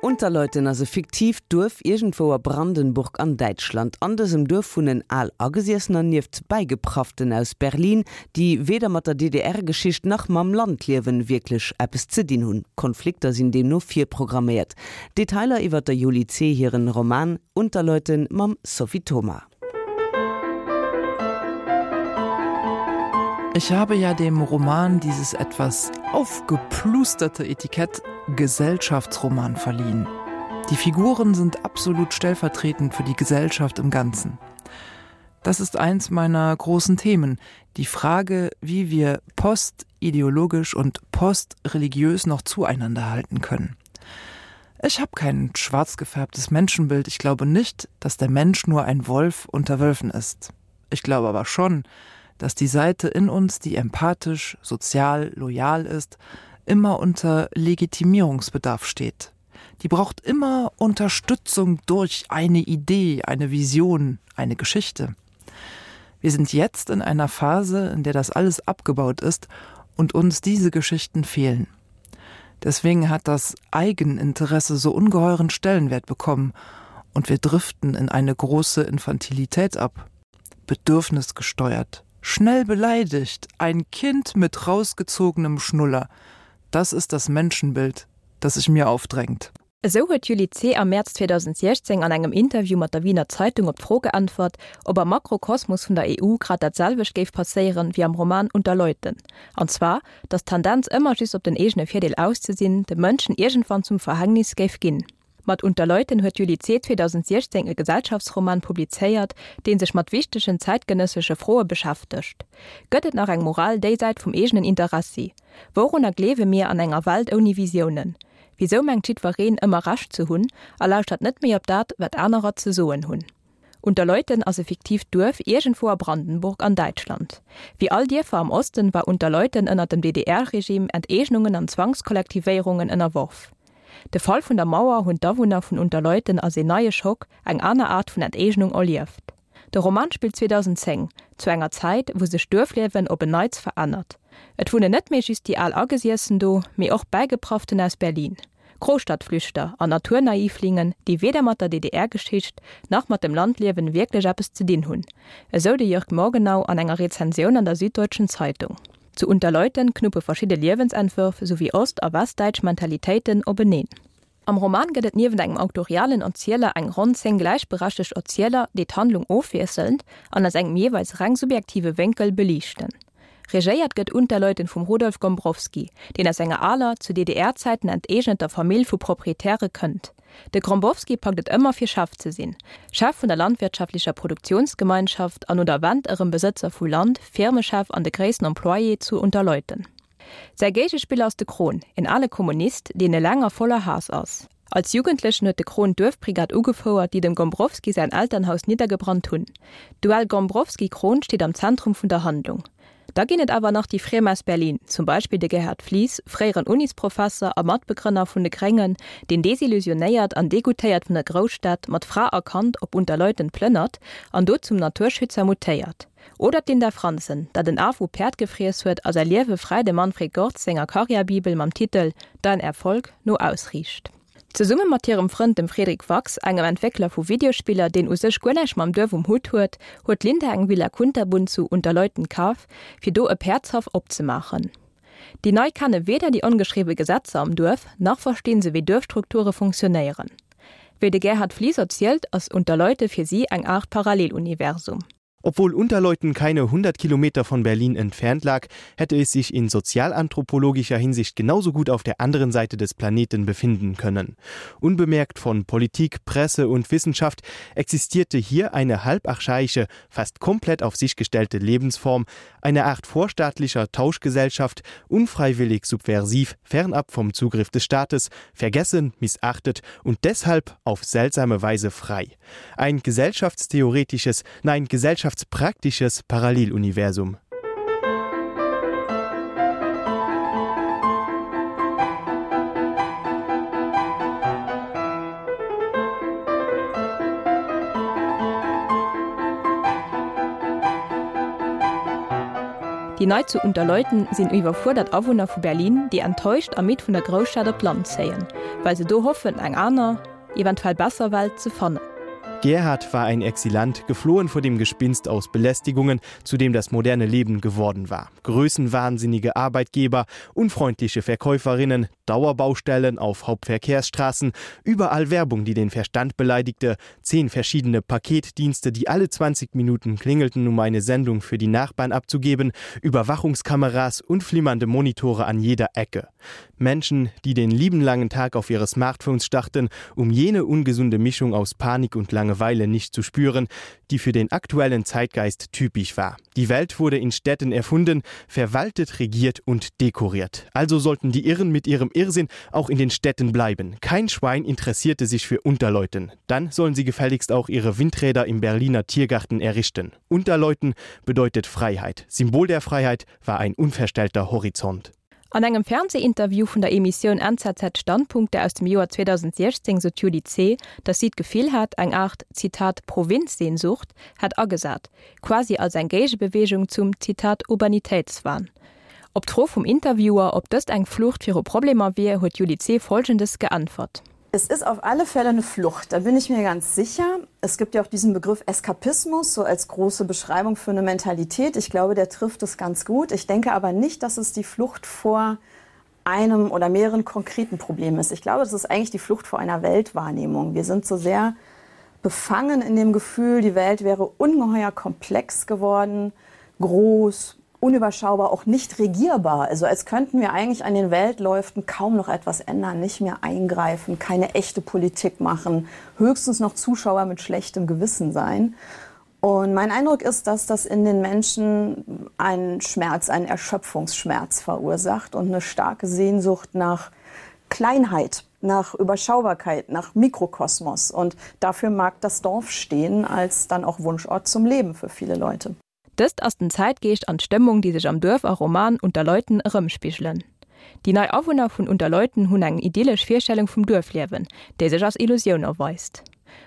Unterleuten ass e fiktiivt Duerf iergendwou a Brandenburg an Däitschland. An dësem Duerf wunnen al Agesiessener nieft Bäigeprafften aus Berlin, déi weder mat der DDR-Geschicht nach mam Landliewen wierklech eppes ze dinn hunn. Konflikter sinn deemno virprogramméiert. Detailer iwwer der Juli Zeh hiren Roman Unterleuten mam Sophie Thoma. Ich habe ja dem Roman dieses etwas aufgeplusterte Etikett Gesellschaftsroman verliehen. Die Figuren sind absolut stellvertretend für die Gesellschaft im Ganzen. Das ist eins meiner großen Themen, die Frage, wie wir postideologisch und postreligiös noch zueinander halten können. Ich habe kein schwarz gefärbtes Menschenbild. Ich glaube nicht, dass der Mensch nur ein Wolf unter Wölfen ist. Ich glaube aber schon, dass die Seite in uns, die empathisch, sozial, loyal ist, immer unter Legitimierungsbedarf steht. Die braucht immer Unterstützung durch eine Idee, eine Vision, eine Geschichte. Wir sind jetzt in einer Phase, in der das alles abgebaut ist und uns diese Geschichten fehlen. Deswegen hat das Eigeninteresse so ungeheuren Stellenwert bekommen und wir driften in eine große Infantilität ab. Bedürfnisgesteuert, schnell beleidigt, ein Kind mit rausgezogenem Schnuller. Das ist das Menschenbild, das sich mir aufdrängt. Esou huet d'Julie Zeh am Mäerz 2016 an engem Interview mat der Wiener Zeitung op d'Fro geäntwert, ob am Makrokosmos vun der EU grad dat selwecht géif passéieren wéi am Roman Unter Leuten, an zwar, datt d'Tendenz ëmmer just op den eegene Virdeel aus ze sinn, de Mënschen iergendwann zum Verhängnis géif ginn. Mat Unter Leuten huet d'Julie Zeh 2016 e Gesellschaftsroman publizéiert, dee sech mat wichtegen zäitgenëssesche Froe beschäftegt. Gëtt et nach eng Moral déisäit vum eegenen Interessi? Wourunner gleewe mir an enger Welt ouni Visiounen? Wisou mengt jiddwereen ëmmer Recht ze hunn a lauschtert net méi op dat, wat anerer ze soen hunn? Unterleuten ass e fiktiivt Duerf iergendwou a Brandenburg an Däitschland. Wéi all Dierfer am Osten war Unterleuten ënner dem DDR-Regime Enteegnungen an Zwangskollektivéierungen ënnerworf. De Fall vun der Mauer hunn d'Awunner vun Unterleuten als een neie Schock, eng aner Aart vun Enteegnung erlieft. De Roman spillt 2010, zu enger Zäit, wou sech d'Duerfliewen op en Neits verännert. Et wunnen net méi just déi al Agesiessen do, mee och Bäigeprafften aus Berlin, Großstadtflüchter an Naturnaivlingen, déi weder mat der DDR-Geschicht nach mat dem Landliewen wierklech eppes ze dinn hunn, esou de Jörg Morgenau an enger Rezensioun an der Süddeutschen Zeitung. Zu Unterleuten knuppe verschidde Liewensentwërf souwéi ost a westdäitsch Mentalitéiten openeen. Am Roman gëtt et niewent engem auktorialen Erzieler eng ronn 10 gläichberechtegt Erzieler, déi d'Handlung ofwiesselnd an aus engem jeeweils reng subjektive Wénkel beliichten. Regéiert gëtt Unterleuten vum Rudolf Gombrowski, deen aus enger aler, zu DDR-Zäiten enteegneter Famill vu Proprietäre kënnt. De Grombowski packt et ëmmer fir Chef ze sinn, Chef vun der landwirtschaftlecher Produktionsgemeinschaft an no der Wend erëm Besëtzer vu Land, Firmechef an de gréissten Employé zu Unterleuten. Säi Géigespiller ass de Krohn, en ale Kommunist, deen eleng a voller Haass ass. Als Jugendlechen huet de Krohn d'Duerfbrigad ugefouert, déi dem Gombrowski säin Elternhaus niddergebrannt hunn. D'Duell Gombrowski-Krohn steet am Zentrum vun der Handlung. Da ginn et awer nach déi Friem aus Berlin, zum Beispill de Gerhard Flies, fréieren Unisprofesser a Matbegrënner vun de Gréngen, deen desillusionéiert an degoutéiert vun der Grousstad mat Fra a Kand op Unterleuten plënnert an do zum Naturschützer mutéiert. Oder d'Linda Franzen, dat en Af u Päerd gefriess huet a säi Liewe fräi dem Manfred Gorz senger Karriärbibel mam Titel Dein Erfolg no ausriicht. Zesumme mat hirem Frënd dem Fredrik Wachs, engem Entwéckler vu Videospiller, deen u sech guer näischt mam Duerf um Hutt huet, huet d'Linda eng Villa Kunterbunt zu Unterleuten kaf, fir do e Päerdshaff opzemaachen. Déi Nei kenne weder déi ongeschriwwe Gesetzer am Duerf, nach verstinn se wéi Duerfstrukture funktionéieren. Wéi de Gerhard Flies erzielt, ass Unterleute fir si eng Aart Paralleluniversum. Obwohl Unterleuten keine 100 Kilometer von Berlin entfernt lag, hätte es sich in sozialanthropologischer Hinsicht genauso gut auf der anderen Seite des Planeten befinden können. Unbemerkt von Politik, Presse und Wissenschaft existierte hier eine halbarchaische, fast komplett auf sich gestellte Lebensform, eine Art vorstaatlicher Tauschgesellschaft, unfreiwillig subversiv, fernab vom Zugriff des Staates, vergessen, missachtet und deshalb auf seltsame Weise frei. Ein gesellschaftstheoretisches, nein gesellschaftspraktisches Paralleluniversum. Déi Nei zu Unterleuten sinn iwwerfuerdert Awunner vu Berlin, déi enttäuscht a midd vun der Grousstad op d'Land zéien, well se do hoffen, eng aner, eventuell besser Welt ze fannen. Gerhard war ein Exilant, geflohen vor dem Gespinst aus Belästigungen, zu dem das moderne Leben geworden war. Größenwahnsinnige Arbeitgeber, unfreundliche Verkäuferinnen, Dauerbaustellen auf Hauptverkehrsstraßen, überall Werbung, die den Verstand beleidigte, zehn verschiedene Paketdienste, die alle 20 Minuten klingelten, um eine Sendung für die Nachbarn abzugeben, Überwachungskameras und flimmernde Monitore an jeder Ecke. Menschen, die den lieben langen Tag auf ihre Smartphones starrten, um jene ungesunde Mischung aus Panik und Langeweile nicht zu spüren, die für den aktuellen Zeitgeist typisch war. Die Welt wurde in Städten erfunden, verwaltet, regiert und dekoriert. Also sollten die Irren mit ihrem Irrsinn auch in den Städten bleiben. Kein Schwein interessierte sich für Unterleuten. Dann sollen sie gefälligst auch ihre Windräder im Berliner Tiergarten errichten. Unterleuten bedeutet Freiheit. Symbol der Freiheit war ein unverstellter Horizont. An engem Fernseeinterview vun der Emissioun NZZ Standpunkte aus dem Joer 2016 sot d'Julie Zeh, datt si d'Gefill hat, eng Aart, Zitat, Provinzsehnsucht hätt agesat, quasi als eng Géigebeweegung zum, Zitat, Urbanitéitswahn. Op d'Fro vum Interviewer, ob dëst eng Flucht viru Problemer wier, huet d'Julie Zeh Folgendes geäntwert. Es ist auf alle Fälle eine Flucht, da bin ich mir ganz sicher. Es gibt ja auch diesen Begriff Eskapismus so als große Beschreibung für eine Mentalität. Ich glaube, der trifft es ganz gut. Ich denke aber nicht, dass es die Flucht vor einem oder mehreren konkreten Problemen ist. Ich glaube, es ist eigentlich die Flucht vor einer Weltwahrnehmung. Wir sind so sehr befangen in dem Gefühl, die Welt wäre ungeheuer komplex geworden, groß, unüberschaubar, auch nicht regierbar. Also als könnten wir eigentlich an den Weltläuften kaum noch etwas ändern, nicht mehr eingreifen, keine echte Politik machen, höchstens noch Zuschauer mit schlechtem Gewissen sein. Und mein Eindruck ist, dass das in den Menschen einen Schmerz, einen Erschöpfungsschmerz verursacht und eine starke Sehnsucht nach Kleinheit, nach Überschaubarkeit, nach Mikrokosmos. Und dafür mag das Dorf stehen als dann auch Wunschort zum Leben für viele Leute. Dëst ass den Zäitgeescht an d'Stëmmung, déi sech am Duerf a Roman Unterleuten erëmspigelen. Déi nei Awunner vun Unterleuten hunn eng idyllesch Virstellung vum Duerfliewen, déi sech als Illusioun erweist.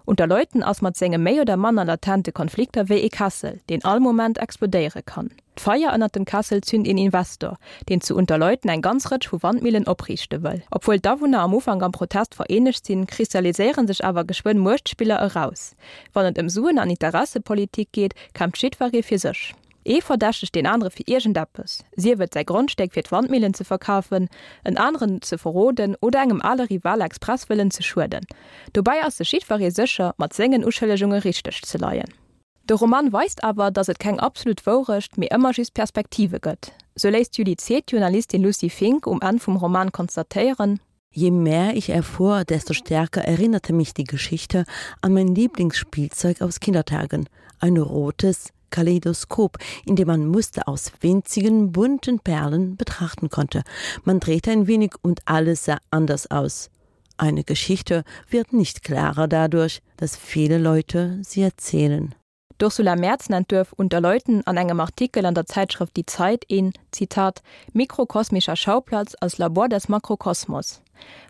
Unterleuten ass mat senge méi oder manner latente Konflikter wéi ee Kessel, deen all Moment explodéiere kann. D'Feier ënnert dem Kessel zünt een Investor, deen zu Unterleuten eng ganz Rëtsch vu Wandmillen opriichte wëll. Obwuel d'Awunner am Ufank am Protest vereenegt sinn, kristalliséiere sech awer geschwënn Muechtspiller eraus. Wann et ëm Suen an Interessepolitik geet, kämpft jiddweree fir sech. Ee verdächtegt deen anere fir iergendeppes, sief et säi Grondstéck fir d'Wandmillen ze verkafen, en aneren ze verroden oder engem ale Rival express wëllen ze schueden. Dobäi ass sech jiddweree sécher, mat sengen Uschëllegunge richteg ze leien. De Roman weist awer, datt et keng absolut Wourecht, mee ëmmer just Perspektive gëtt. Sou léisst d'Julie Zeh d'Journalistin Lucy Fink um Enn vum Roman konstatéieren, Je mehr ich erfuhr, desto stärker erinnerte mich die Geschichte an mein Lieblingsspielzeug aus Kindertagen, ein rotes Kaleidoskop, in dem man Muster aus winzigen bunten Perlen betrachten konnte. Man drehte ein wenig und alles sah anders aus. Eine Geschichte wird nicht klarer dadurch, dass viele Leute sie erzählen. D'Ursula Merz nennt d'Duerf Unterleuten an engem Artikel an der Zäitschrëft Die Zeit een, Zitat, mikrokosmischer Schauplatz als Labor des Makrokosmos.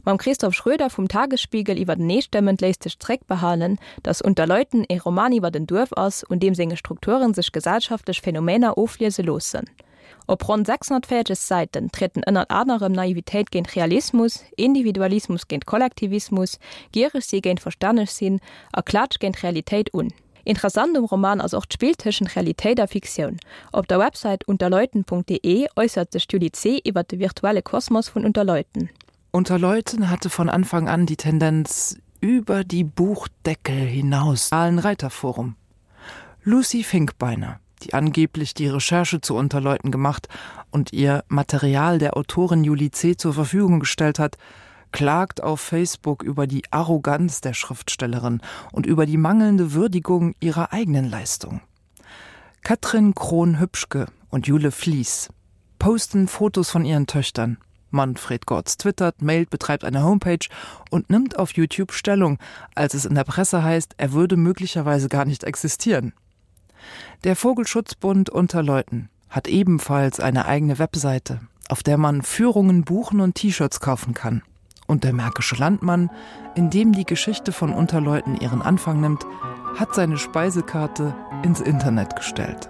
Mam Christoph Schröder vum Tagesspiegel iwwerteneestëmmend léisst sech zréckbehalen, datt Unterleuten ee Roman iwwert en Duerf ass, un deem senge Strukture sech gesellschaftlech Phänomener ofliese loossen. Op ronn 640 Säiten trieden ënnert anerem Naivitéit géint Realismus, Individualismus géint Kollektivismus, giereg si géint verstänneg sinn a Klaatsch géint Realitéit un. Interessant um Roman ass och d'Spill tëschent Realitéit a Fiktioun. Op der Websäit unterleuten.de äussert sech d'Julie Zeh iwwer de virtuelle Kosmos vun Unterleuten. Unterleuten hatte von Anfang an die Tendenz, über die Buchdeckel hinaus Reiterforum. Lucy Finkbeiner, die angeblich die Recherche zu Unterleuten gemacht und ihr Material der Autorin Julie C. zur Verfügung gestellt hat, klagt auf Facebook über die Arroganz der Schriftstellerin und über die mangelnde Würdigung ihrer eigenen Leistung. Katrin Krohn-Hübschke und Jule Fließ posten Fotos von ihren Töchtern. Manfred Gortz twittert, mailt, betreibt eine Homepage und nimmt auf YouTube Stellung, als es in der Presse heißt, er würde möglicherweise gar nicht existieren. Der Vogelschutzbund Unterleuten hat ebenfalls eine eigene Webseite, auf der man Führungen buchen und T-Shirts kaufen kann. Und der Märkische Landmann, in dem die Geschichte von Unterleuten ihren Anfang nimmt, hat seine Speisekarte ins Internet gestellt.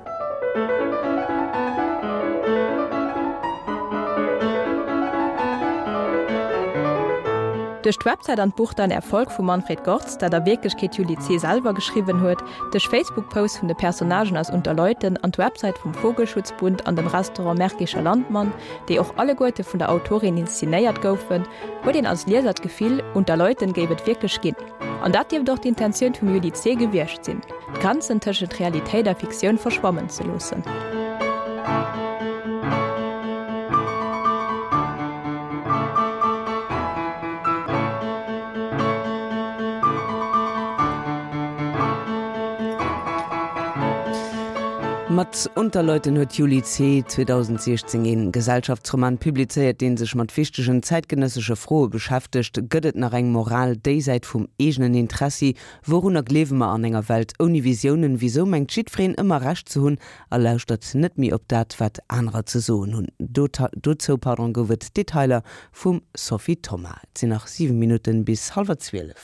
Duerch d'Websäit an d'Buch Dein Erfolg vum Manfred Gorz, dat a Wierklechkeet d'Julie Zeh selwer geschriwwen huet, duerch Facebook-Posts vun de Personnagen aus Unter Leuten an d'Websäit vum Vogelschutzbund an dem Restaurant Märkischer Landmann, déi och alleguerte vun der Autorin inszenéiert goufen, huet een als Lieser d'Gefill, Unter Leuten géif et wierklech ginn. An dat dierft och d'Intentioun vum Julie Zeh gewiescht sinn, d'Grenzen tëschent Realitéit a Fiktioun verschwammen ze loossen. Mat Unterleuten huet d'Julie Zeh 2016 een Gesellschaftsroman publizéiert, deen sech mat wichtegen zäitgenëssesche Froe beschäftegt, Gëtt et nach eng Moral déisäit vum eegenen Interessi? Wourunner gleewe mer an enger Welt ouni Visiounen? Wisou mengt jiddwereen ëmmer Recht ze hunn a lauschtert net méi op dat, wat anerer ze soen hunn? Dozou, pardon, gouf et Detailer vum Sophie Thoma. Et sinn nach 7 Minutten bis hallwer 12.